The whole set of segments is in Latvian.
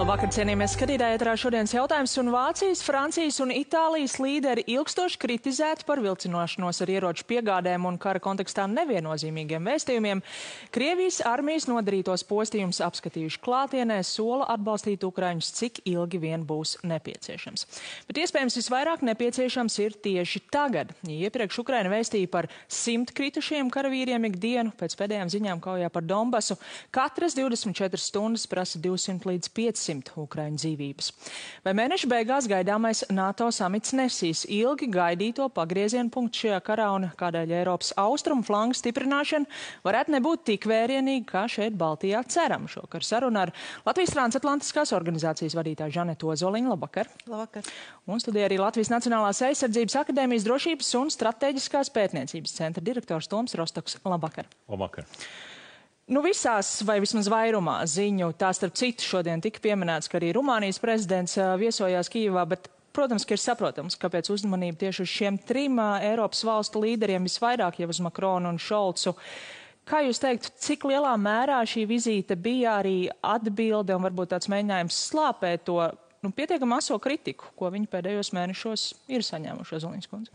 Labvakar, cienījamies skatītāji, ēterā šodienas jautājums, un Vācijas, Francijas un Itālijas līderi ilgstoši kritizēti par vilcinošanos ar ieroču piegādēm un kara kontekstā neviennozīmīgiem vēstījumiem. Krievijas armijas nodarītos postījumus apskatījuši klātienē, sola atbalstīt ukraiņus, cik ilgi vien būs nepieciešams. Bet iespējams visvairāk nepieciešams ir tieši tagad. Iepriekš Ukraina vēstīja par 100 kritušiem karavīriem ikdienu, pēc pēdējām ziņām kaujā par Donbasu. Katras 24 stundas prasa 200 līdz 500 ukraiņu dzīvības. Vai mēneša beigās gaidāmais NATO samits nesīs ilgi gaidīto pagriezienu punktu šajā karā un kādēļ Eiropas austrumu flangu stiprināšana varētu nebūt tik vērienīga, kā šeit Baltijā ceram? Šokar saruna ar Latvijas transatlantiskās organizācijas vadītāju Žanetu Ozoliņu. Labvakar! Labvakar! Un studijā arī Latvijas Nacionālās aizsardzības akadēmijas drošības un strateģiskās pētniecības centra direktors Toms Rostoks. Labvakar! Labvakar! Visās, vai vismaz vairumā ziņu, tā starp citu šodien tika pieminēts, ka arī Rumānijas prezidents viesojās Kijevā, bet, protams, ka ir saprotams, kāpēc uzmanība tieši uz šiem trim Eiropas valstu līderiem visvairāk jau uz Makronu un Šolcu. Kā jūs teiktu, cik lielā mērā šī vizīte bija arī atbilde un varbūt tāds mēģinājums slāpēt to pietiekami aso kritiku, ko viņi pēdējos mēnešos ir saņēmuši, Ozoliņas kundze?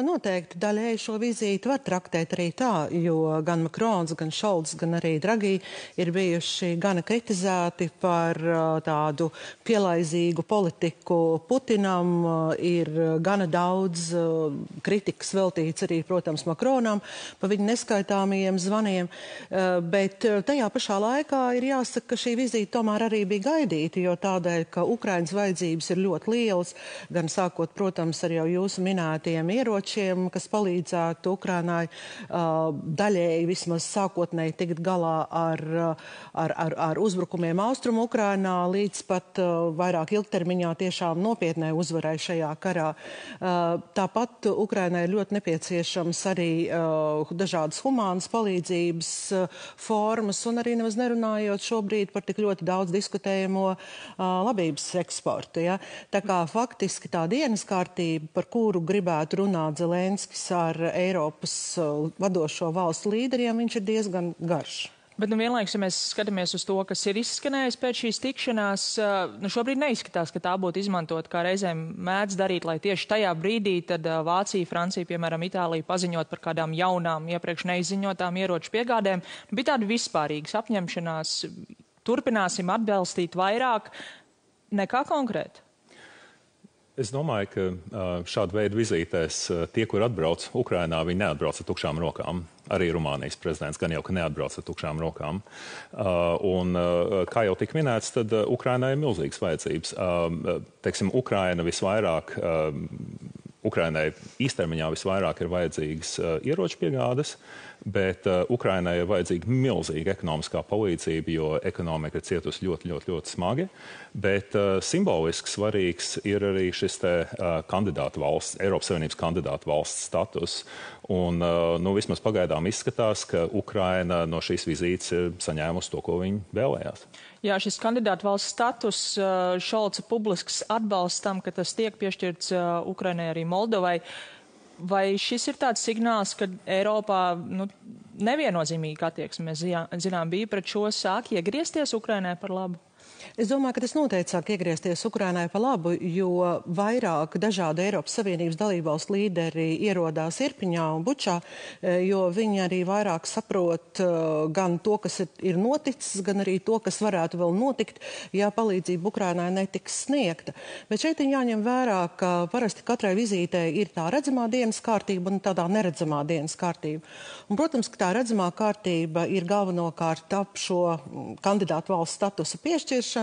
Noteikti daļēji šo vizīti var traktēt arī tā, jo gan Makrons, gan Šolts, gan arī Dragī ir bijuši gana kritizēti par tādu pielaizīgu politiku Putinam. Ir gana daudz kritikas veltīts arī, protams, Makronam pa viņa neskaitāmajiem zvaniem, bet tajā pašā laikā ir jāsaka, ka šī vizīte tomēr arī bija gaidīta, jo tādēļ, ka Ukrainas vajadzības ir ļoti lielas, gan sākot, protams, ar jau jūsu minētajiem ieročiem, kas palīdzētu Ukrainai daļēji vismaz sākotnēji tikt galā ar uzbrukumiem austrumu Ukrainā, līdz pat vairāk ilgtermiņā tiešām nopietnai uzvarai šajā karā. Tāpat Ukrainai ir ļoti nepieciešams arī dažādas humānas palīdzības formas, un arī nemaz nerunājot šobrīd par tik ļoti daudz diskutējamo labības eksportu. Ja? Tā kā faktiski tā dienas kārtība, par kuru gribētu runāt Zelenskis ar Eiropas vadošo valstu līderiem, viņš ir diezgan garš. Bet vienlaikus, ja mēs skatāmies uz to, kas ir izskanējis pēc šīs tikšanās, šobrīd neizskatās, ka tā būtu izmantot, kā reizēm mēdz darīt, lai tieši tajā brīdī tad Vācija, Francija, piemēram, Itālija paziņot par kādām jaunām, iepriekš neizziņotām ieroču piegādēm. Bija tāda vispārīgas apņemšanās, turpināsim atbalstīt vairāk nekā konkrēti. Es domāju, ka šāda veida vizītēs tie, kur atbrauc Ukrainā, viņi neatbrauc ar tukšām rokām. Arī Rumānijas prezidents gan jau, ka neatbrauc ar tukšām rokām. Un, kā jau tika minēts, tad Ukrainai ir milzīgas vajadzības. Teiksim, Ukrainai īstermiņā visvairāk ir vajadzīgas ieroču piegādes, bet Ukrainai ir vajadzīga milzīga ekonomiskā palīdzība, jo ekonomika ir cietusi ļoti, ļoti, ļoti smagi. Bet simboliski svarīgs ir arī šis kandidātu valsts, Eiropas Savienības kandidātu valsts status. Un vismaz pagaidām izskatās, ka Ukraina no šīs vizītes ir saņēmusi to, ko viņi vēlējās. Jā, šis kandidātu valsts status, Šolca publisks atbalsts tam, ka tas tiek piešķirts Ukrainai arī Moldovai. Vai šis ir tāds signāls, ka Eiropā neviennozīmīga attieksme, mēs zinām, bija pret šo sāk iegriezties Ukrainai par labu? Es domāju, ka tas noteikti sāk iegriezties Ukrainai pa labu, jo vairāk dažādu Eiropas Savienības dalībvalstu līderi ierodās Irpiņā un Bučā, jo viņi arī vairāk saprot gan to, kas ir noticis, gan arī to, kas varētu vēl notikt, ja palīdzība Ukrainai netiks sniegta. Bet šeit ir jāņem vērā, ka parasti katrai vizītei ir tā redzamā dienas kārtība un tādā neredzamā dienas kārtība. Un, protams, ka tā redzamā kārtība ir galvenokārt ap šo kandidātu valsts statusa piešķiršanu,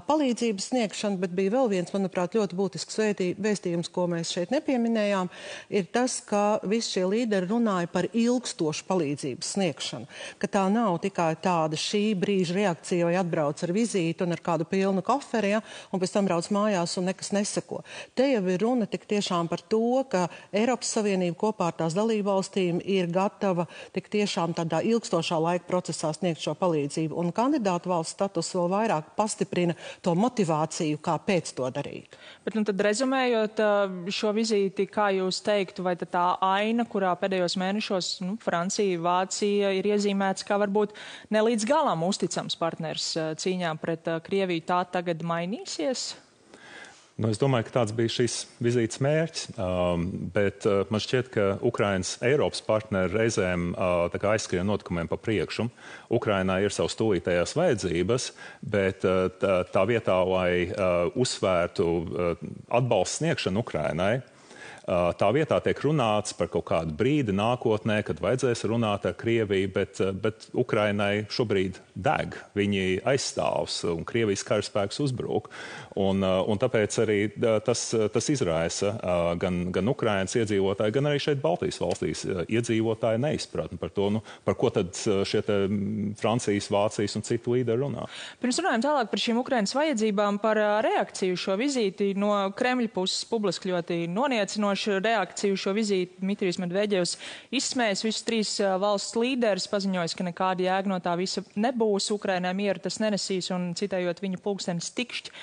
palīdzības sniegšanu, bet bija vēl viens, manuprāt, ļoti būtisks vēstījums, ko mēs šeit nepieminējām, ir tas, ka visi šie līderi runāja par ilgstošu palīdzības sniegšanu, ka tā nav tikai tāda šī brīža reakcija, vai atbrauc ar vizīti un ar kādu pilnu koferi, ja, un pēc tam brauc mājās un nekas neseko. Te jau ir runa tik tiešām par to, ka Eiropas Savienība kopā ar tās dalībvalstīm ir gatava tik tiešām tādā ilgstošā laika procesā sniegt šo palīdzību, un kandidātu valsts status vēl vairāk vairāk pastiprina to motivāciju, kāpēc to darīt. Bet tad rezumējot šo vizīti, kā jūs teiktu, vai tā aina, kurā pēdējos mēnešos Francija, Vācija ir iezīmēts, kā varbūt ne līdz galam uzticams partners cīņā pret Krieviju, tā tagad mainīsies? Es domāju, ka tāds bija šīs vizītes mērķis, bet man šķiet, ka Ukrainas Eiropas partneri reizēm aizskrien notikumiem pa priekšu. Ukrainā ir savas tūlītējās vajadzības, bet tā vietā, lai uzsvērtu atbalstu sniegšanu Ukrainai, tā vietā tiek runāts par kaut kādu brīdi nākotnē, kad vajadzēs runāt ar Krieviju, bet Ukrainai šobrīd deg. Viņi aizstāvs un Krievijas karaspēks uzbruk. Un tāpēc arī tas izraisa gan Ukrainas iedzīvotāji, gan arī šeit Baltijas valstīs iedzīvotāji neizpratni par to, par ko tad šie Francijas, Vācijas un citu līderi runā. Pirms runājam tālāk par šīm Ukrainas vajadzībām, par reakciju šo vizīti no Kremļa puses publiski ļoti noniecinoši. Reakciju šo vizīti Dmitrijs Medvedevs izsmējis visus 3 valsts līderis, paziņojis, ka nekāda jēga no tā visa nebūs, Ukrainai mieru tas nenesīs un citējot viņa pulkstenis tikšķi.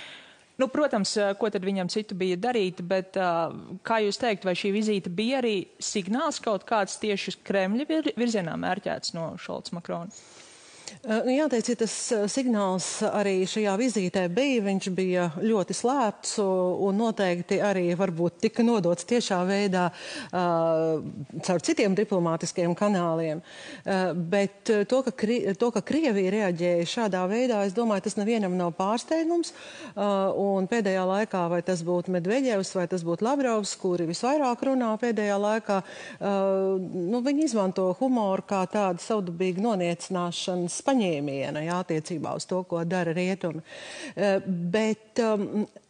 Protams, ko tad viņam citu bija darīt, bet kā jūs teikt, vai šī vizīte bija arī signāls kaut kāds tieši uz Kremļa virzienā mērķēts no Šolca Makrona? Jāteic, ja tas signāls arī šajā vizītē bija, viņš bija ļoti slēpts un noteikti arī varbūt tika nodots tiešā veidā caur citiem diplomātiskiem kanāliem. Bet to, ka Krievija reaģēja šādā veidā, es domāju, tas nevienam nav pārsteigums. Un pēdējā laikā, vai tas būtu Medvedevs, vai tas būtu Lavrovs, kuri visvairāk runā pēdējā laikā, viņi izmanto humoru kā tādu savdabīgu noniecināšanas paņēmiena, attiecībā uz to, ko dara rietumi. Bet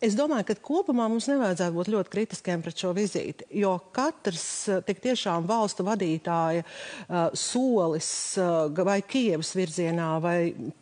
es domāju, ka kopumā mums nevajadzētu būt ļoti kritiskiem pret šo vizīti, jo katrs tik tiešām valstu vadītāja solis vai Kijevas virzienā vai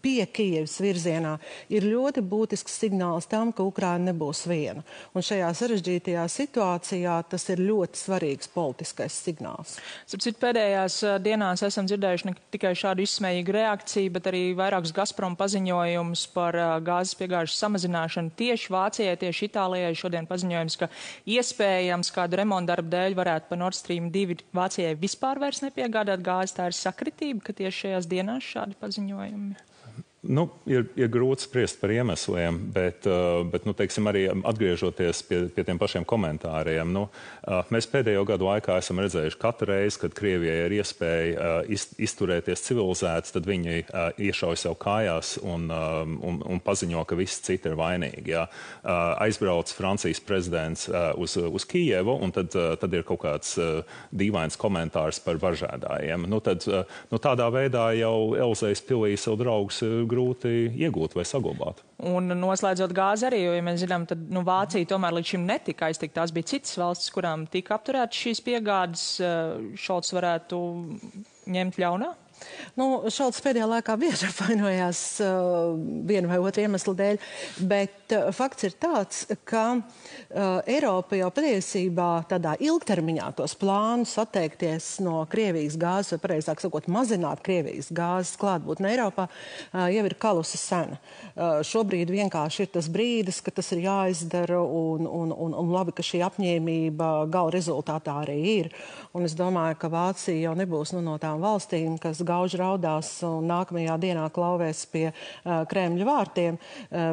pie Kijevas virzienā ir ļoti būtisks signāls tam, ka Ukraina nebūs viena. Un šajā sarežģītajā situācijā tas ir ļoti svarīgs politiskais signāls. Sapcīt, pēdējās dienās esam dzirdējuši ne tikai šādu izsmējīgu reakciju, bet arī vairākus Gazprom paziņojumus par gāzes piegāžu samazināšanu tieši Vācijai, tieši Itālijai. Šodien paziņojums, ka iespējams kādu remontdarbu dēļ varētu pa Nord Stream 2 Vācijai vispār vairs nepiegādāt gāzi. Tā ir sakritība, ka tieši šajās dienās šādi paziņojumi. Ir grūti spriest par iemesliem, bet teiksim, arī atgriežoties pie tiem pašiem komentāriem, mēs pēdējo gadu laikā esam redzējuši katru reizi, kad Krievijai ir iespēja izturēties civilizēts, tad viņi iešauj sev kājās un paziņo, ka visi citi ir vainīgi. Jā. Aizbrauc Francijas prezidents uz Kijevu, un tad ir kaut kāds dīvains komentārs par varžēdājiem. Tādā veidā jau Elzejas pilī savu draugus grūti iegūt vai saglabāt. Un noslēdzot gāzi arī, jo, ja mēs zinām, tad Vācija tomēr līdz šim netika aiztikt. Tās bija citas valstis, kurām tika apturētas šīs piegādes. Šolts varētu ņemt ļaunā? Šolts pēdējā laikā bieži apvainojās vienu vai otru iemeslu dēļ, bet fakts ir tāds, ka Eiropa jau patiesībā tādā ilgtermiņā tos plānus atteikties no Krievijas gāzes, vai pareizāk sakot, mazināt Krievijas gāzes klātbūtni Eiropā, jau ir kalusi sena. Šobrīd vienkārši ir tas brīdis, ka tas ir jāizdara un labi, ka šī apņēmība gala rezultātā arī ir. Un es domāju, ka Vācija jau nebūs no tām valstīm, kas gauži raudās un nākamajā dienā klauvēs pie Kremļa vārtiem,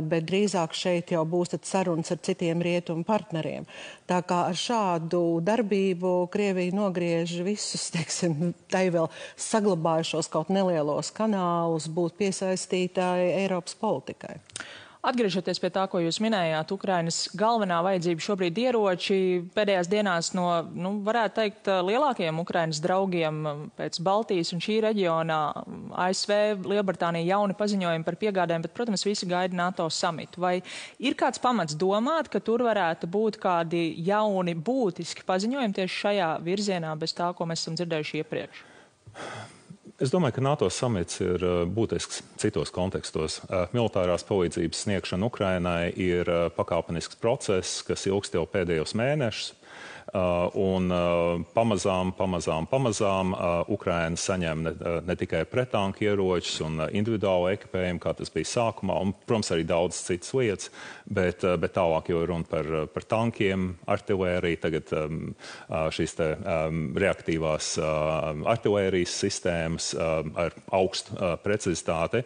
bet drīzāk šeit jau būs sarunas ar citiem rietumu partneriem. Tā kā ar šādu darbību Krievija nogriež visus, teiksim, tai vēl saglabājušos kaut nelielos kanālus būt piesaistītāji Eiropas politikai. Atgriežoties pie tā, ko jūs minējāt, Ukrainas galvenā vajadzība šobrīd ieroči pēdējās dienās no, varētu teikt, lielākajiem Ukrainas draugiem pēc Baltijas un šī reģionā ASV, Lielbritānija jauni paziņojumi par piegādēm, bet, protams, visi gaida NATO samitu. Vai ir kāds pamats domāt, ka tur varētu būt kādi jauni būtiski paziņojumi tieši šajā virzienā bez tā, ko mēs esam dzirdējuši iepriekš? Es domāju, ka NATO samits ir būtisks citos kontekstos. Militārās palīdzības sniegšana Ukrainai ir pakāpenisks process, kas ilgst jau pēdējos mēnešus. Un pamazām Ukraina saņem ne tikai pretanku ieročus un individuālu ekipējumu, kā tas bija sākumā, un, protams, arī daudz citas lietas, bet tālāk jau runa par tankiem, artilēriju, tagad šīs te reaktīvās artilērijas sistēmas ar augstu precizitāti.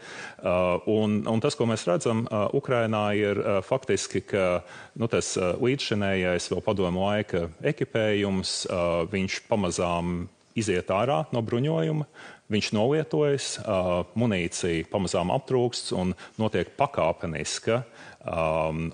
Un tas, ko mēs redzam Ukrainā, ir faktiski, ka tas līdzšinējais vēl padomu laika ekipējums, viņš pamazām iziet ārā no bruņojuma, viņš nolietojas, munīcija pamazām aptrūkst un notiek pakāpeniska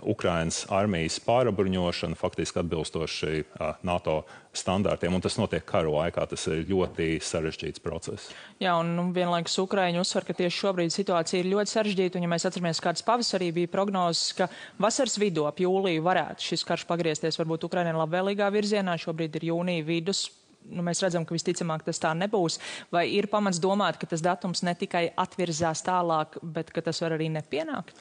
Ukrainas armijas pārabruņošana, faktiski atbilstoši NATO standārtiem, un tas notiek karu laikā. Tas ir ļoti sarežģīts process. Jā, un vienlaikus Ukraiņi uzsver, ka tieši šobrīd situācija ir ļoti sarežģīta, un ja mēs atceramies, kāds pavasarī bija prognozes, ka vasaras vidū ap jūliju varētu šis karš pagriezties varbūt Ukrainai labvēlīgā virzienā, šobrīd ir jūnija vidus. Mēs redzam, ka visticamāk tas tā nebūs. Vai ir pamats domāt, ka tas datums ne tikai atvirzās tālāk, bet ka tas var arī nepienākt?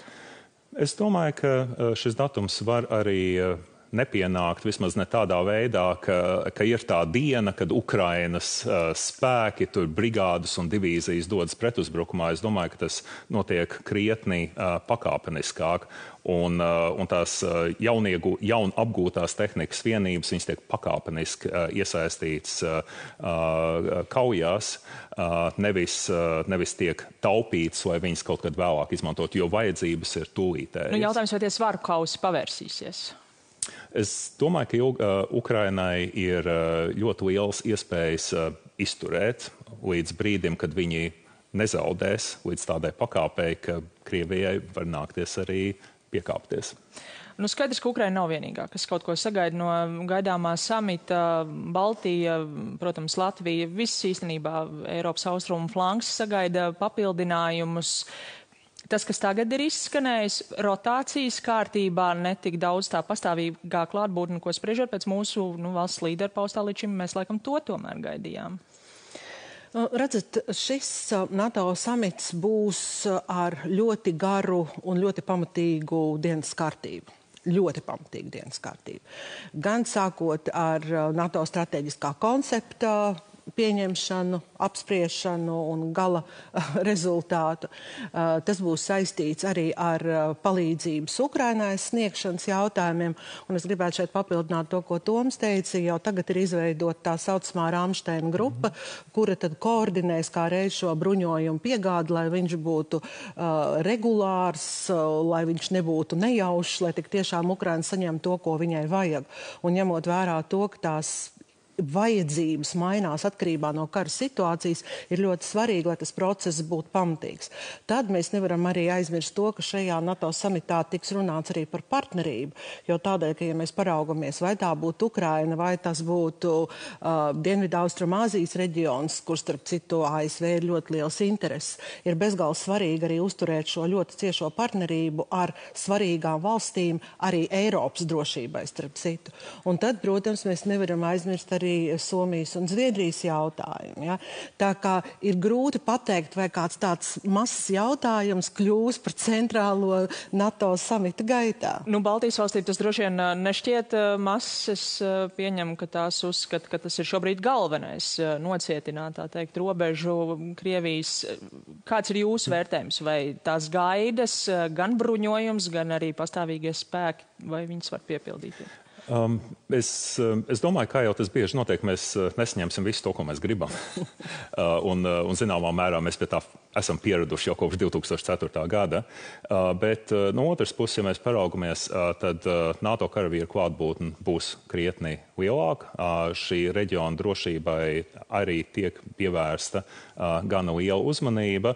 Es domāju, ka šis datums var arī nepienākt, vismaz ne tādā veidā, ka ir tā diena, kad Ukrainas spēki, tur brigādes un divīzijas dodas pretuzbrukumā. Es domāju, ka tas notiek krietni pakāpeniskāk. Un tās jaun apgūtās tehnikas vienības, viņas tiek pakāpeniski iesaistītas kaujās, nevis tiek taupītas, lai viņas kaut kad vēlāk izmantot, jo vajadzības ir tūlītējas. Jautājums, vai tie svaru kausi pavērsīsies? Es domāju, ka Ukrainai ir ļoti liels iespējas izturēt līdz brīdim, kad viņi nezaudēs līdz tādai pakāpei, ka Krievijai var nākties arī piekāpties. Skaidrs, ka Ukraina nav vienīgā, kas kaut ko sagaida no gaidāmā samita. Baltija, protams, Latvija, viss īstenībā Eiropas austrumu flanks sagaida papildinājumus. Tas, kas tagad ir izskanējis, rotācijas kārtībā, netik daudz tā pastāvīgā klātbūtne, ko spriežot pēc mūsu valsts līderu paustā līdz šim, mēs laikam to tomēr gaidījām. Redzat, šis NATO samits būs ar ļoti garu un ļoti pamatīgu dienas kārtību. Ļoti pamatīgu dienas kārtību. Gan sākot ar NATO strateģiskā koncepta pieņemšanu, apspriešanu un gala rezultātu. Tas būs saistīts arī ar palīdzības Ukrainai sniegšanas jautājumiem. Un es gribētu šeit papildināt to, ko Toms teica. Jau tagad ir izveidota tā saucamā Ramsteina grupa, kura tad koordinēs kā reiz šo bruņojumu piegādi, lai viņš būtu regulārs, lai viņš nebūtu nejaušs, lai tik tiešām Ukraina saņem to, ko viņai vajag. Un ņemot vērā to, ka tās vajadzības mainās atkarībā no kara situācijas, ir ļoti svarīgi, lai tas process būtu pamatīgs. Tad mēs nevaram arī aizmirst to, ka šajā NATO samitā tiks runāts arī par partnerību, jo tādēļ, ka ja mēs paraugamies, vai tā būtu Ukraina, vai tas būtu Dienvidu-Austrumāzijas reģions, kur starp citu ASV ir ļoti liels intereses, ir bezgalīgi svarīgi arī uzturēt šo ļoti ciešo partnerību ar svarīgām valstīm, arī Eiropas drošībai starp citu. Un tad, protams, mēs nevaram aizmirst arī Somijas un Zviedrijas jautājumu. Ja? Tā kā ir grūti pateikt, vai kāds tāds mazs jautājums kļūs par centrālo NATO samita gaitā. Baltijas valstīm tas droši vien nešķiet mazs. Es pieņemu, ka tās uzskata, ka tas ir šobrīd galvenais nocietināt, tā teikt, robežu Krievijas. Kāds ir jūsu vērtējums? Vai tās gaidas, gan bruņojums, gan arī pastāvīgie spēki, vai viņas var piepildīt? Es domāju, kā jau tas bieži notiek, mēs nesaņemsim visu to, ko mēs gribam. un zināmā mērā mēs pie tā esam pieraduši jau kopš 2004. gada. Bet no otras puses, ja mēs paraugamies, tad NATO karavīru klātbūtne būs krietni lielāka. Šī reģiona drošībai arī tiek pievērsta gana liela uzmanība.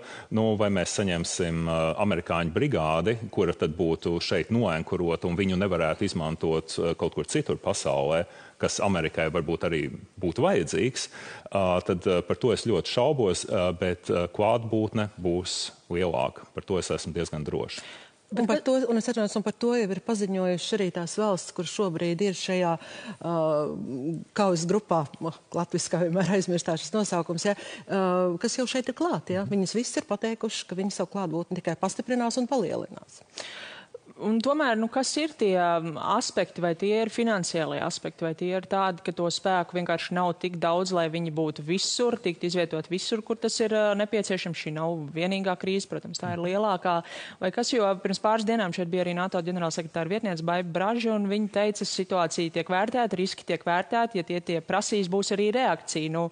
Vai mēs saņemsim amerikāņu brigādi, kura tad būtu šeit noenkurota un viņu nevarētu izmantot kaut kur citur pasaulē, kas Amerikai varbūt arī būtu vajadzīgs, tad par to es ļoti šaubos, bet klātbūtne būs lielāka. Par to es esmu diezgan drošs. Un par to jau ir paziņojuši arī tās valsts, kur šobrīd ir šajā kaujas grupā, latviskā vienmēr aizmirstā šis nosaukums, ja, kas jau šeit ir klāt. Ja. Viņas viss ir pateikuši, ka viņi savu klātbūtni tikai pastiprinās un palielinās. Un tomēr, kas ir tie aspekti, vai tie ir finansiālie aspekti, vai tie ir tādi, ka to spēku vienkārši nav tik daudz, lai viņi būtu visur, tikt izvietot visur, kur tas ir nepieciešams. Šī nav vienīgā krīze, protams, tā ir lielākā. Vai kas, jo pirms pāris dienām šeit bija arī NATO ģenerālsekretāra vietniece Baiba Braža, un viņa teica, situācija tiek vērtēta, riski tiek vērtēti, ja tie prasīs, būs arī reakcija.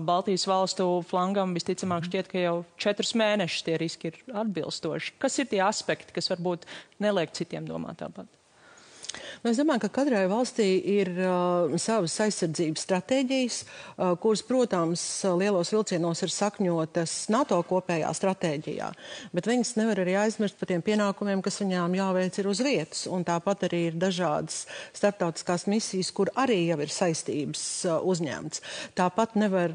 Baltijas valstu flangam visticamāk šķiet, ka jau 4 mēnešus tie riski ir atbilstoši. Kas ir tie aspekti, kas varbūt neliek citiem domāt tāpat? Es domāju, ka katrai valstī ir savas aizsardzības stratēģijas, kuras, protams, lielos vilcienos ir sakņotas NATO kopējā stratēģijā, bet viņas nevar arī aizmirst par tiem pienākumiem, kas viņām jāveic ir uz vietas, un tāpat arī ir dažādas starptautiskās misijas, kur arī jau ir saistības uzņemts. Tāpat nevar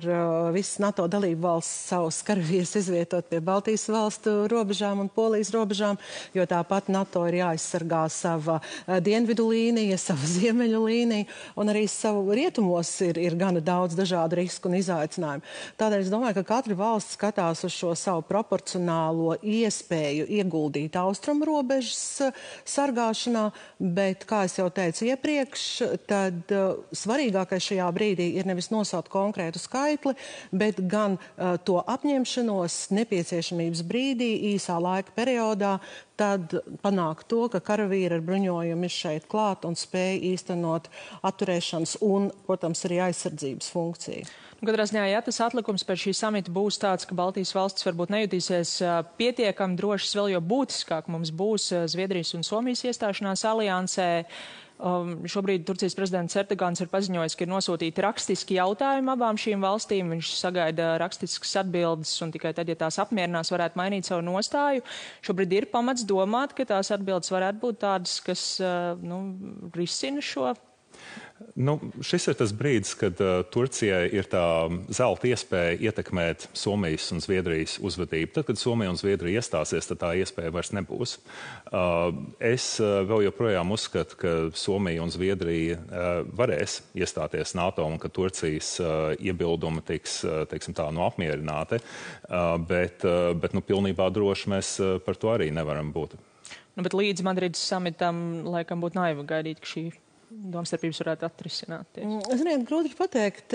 visas NATO dalību valsts savus karavīrus izvietot pie Baltijas valstu robežām un Polijas robežām, jo tāpat NATO ir jāaizsargā sava dienvidu līnija, sava ziemeļu līnija, un arī savu rietumos ir gana daudz dažādu risku un izaicinājumu. Tādēļ es domāju, ka katra valsts skatās uz šo savu proporcionālo iespēju ieguldīt austrumu robežas sargāšanā, bet, kā es jau teicu iepriekš, tad svarīgākais šajā brīdī ir nevis nosaukt konkrētu skaitli, bet gan to apņemšanos nepieciešamības brīdī, īsā laika periodā, tad panākt to, ka karavīri ar bruņojumu ir šeit klāt un spēj īstenot atturēšanas un, protams, arī aizsardzības funkciju. Katrā ziņā, ja tas atlikums pēc šī samita būs tāds, ka Baltijas valstis varbūt nejutīsies pietiekami drošas, vēl jo būtiskāk mums būs Zviedrijas un Somijas iestāšanās aliansē. Šobrīd Turcijas prezidents Erdogans ir paziņojis, ka ir nosūtīti rakstiski jautājumi abām šīm valstīm. Viņš sagaida rakstiskas atbildes un tikai tad, ja tās apmierinās, varētu mainīt savu nostāju. Šobrīd ir pamats domāt, ka tās atbildes varētu būt tādas, kas risina šo. Šis ir tas brīdis, kad Turcijai ir tā zelta iespēja ietekmēt Somijas un Zviedrijas uzvedību. Tad, kad Somija un Zviedrija iestāsies, tad tā iespēja vairs nebūs. Es vēl joprojām uzskatu, ka Somija un Zviedrija varēs iestāties NATO un ka Turcijas iebildumi tiks, teiksim tā, apmierināti, bet pilnībā droši mēs par to arī nevaram būt. Bet līdz Madrides samitam laikam būtu naivi gaidīt, ka šī domstarpības varētu atrisināt. Ziniet, grūti pateikt.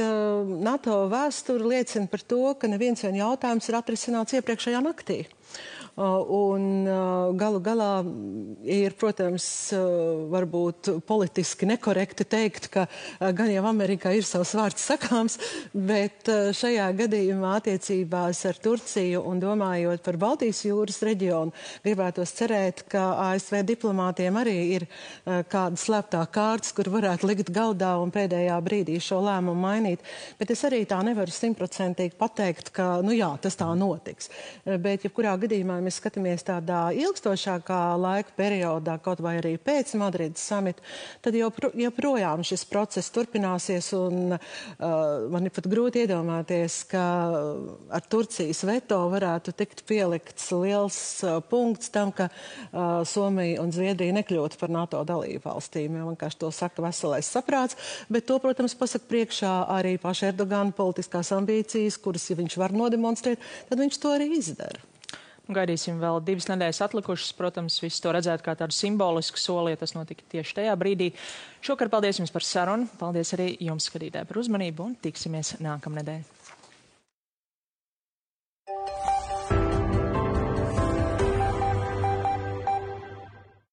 NATO vēsture liecina par to, ka neviens vien jautājums ir atrisināts iepriekšējā naktī. Un galu galā ir, protams, varbūt politiski nekorekti teikt, ka gan jau Amerikā ir savs vārds sakāms, bet šajā gadījumā attiecībās ar Turciju un domājot par Baltijas jūras reģionu, gribētos cerēt, ka ASV diplomātiem arī ir kāda slēptā kārtas, kur varētu likt galdā un pēdējā brīdī šo lēmumu mainīt. Bet es arī tā nevaru 100% pateikt, ka, jā, tas tā notiks. Bet, jebkurā gadījumā, mēs skatāmies tādā ilgstošākā laika periodā, kaut vai arī pēc Madrides samita, tad joprojām šis process turpināsies un man ir pat grūti iedomāties, ka ar Turcijas veto varētu tikt pielikts liels punkts tam, ka Somija un Zviedrija nekļūtu par NATO dalību valstīm. Vienkārši to saka veselais saprāts, bet to, protams, pasaka priekšā arī paša Erdogana politiskās ambīcijas, kuras, ja viņš var nodemonstrēt, tad viņš to arī izdara. Gaidīsim vēl 2 nedēļas atlikušas. Protams, visi to redzētu kā tādu simbolisku soli, ja tas notika tieši tajā brīdī. Šokar paldies jums par sarunu. Paldies arī jums, skatītāji, par uzmanību un tiksimies nākamnedēļ.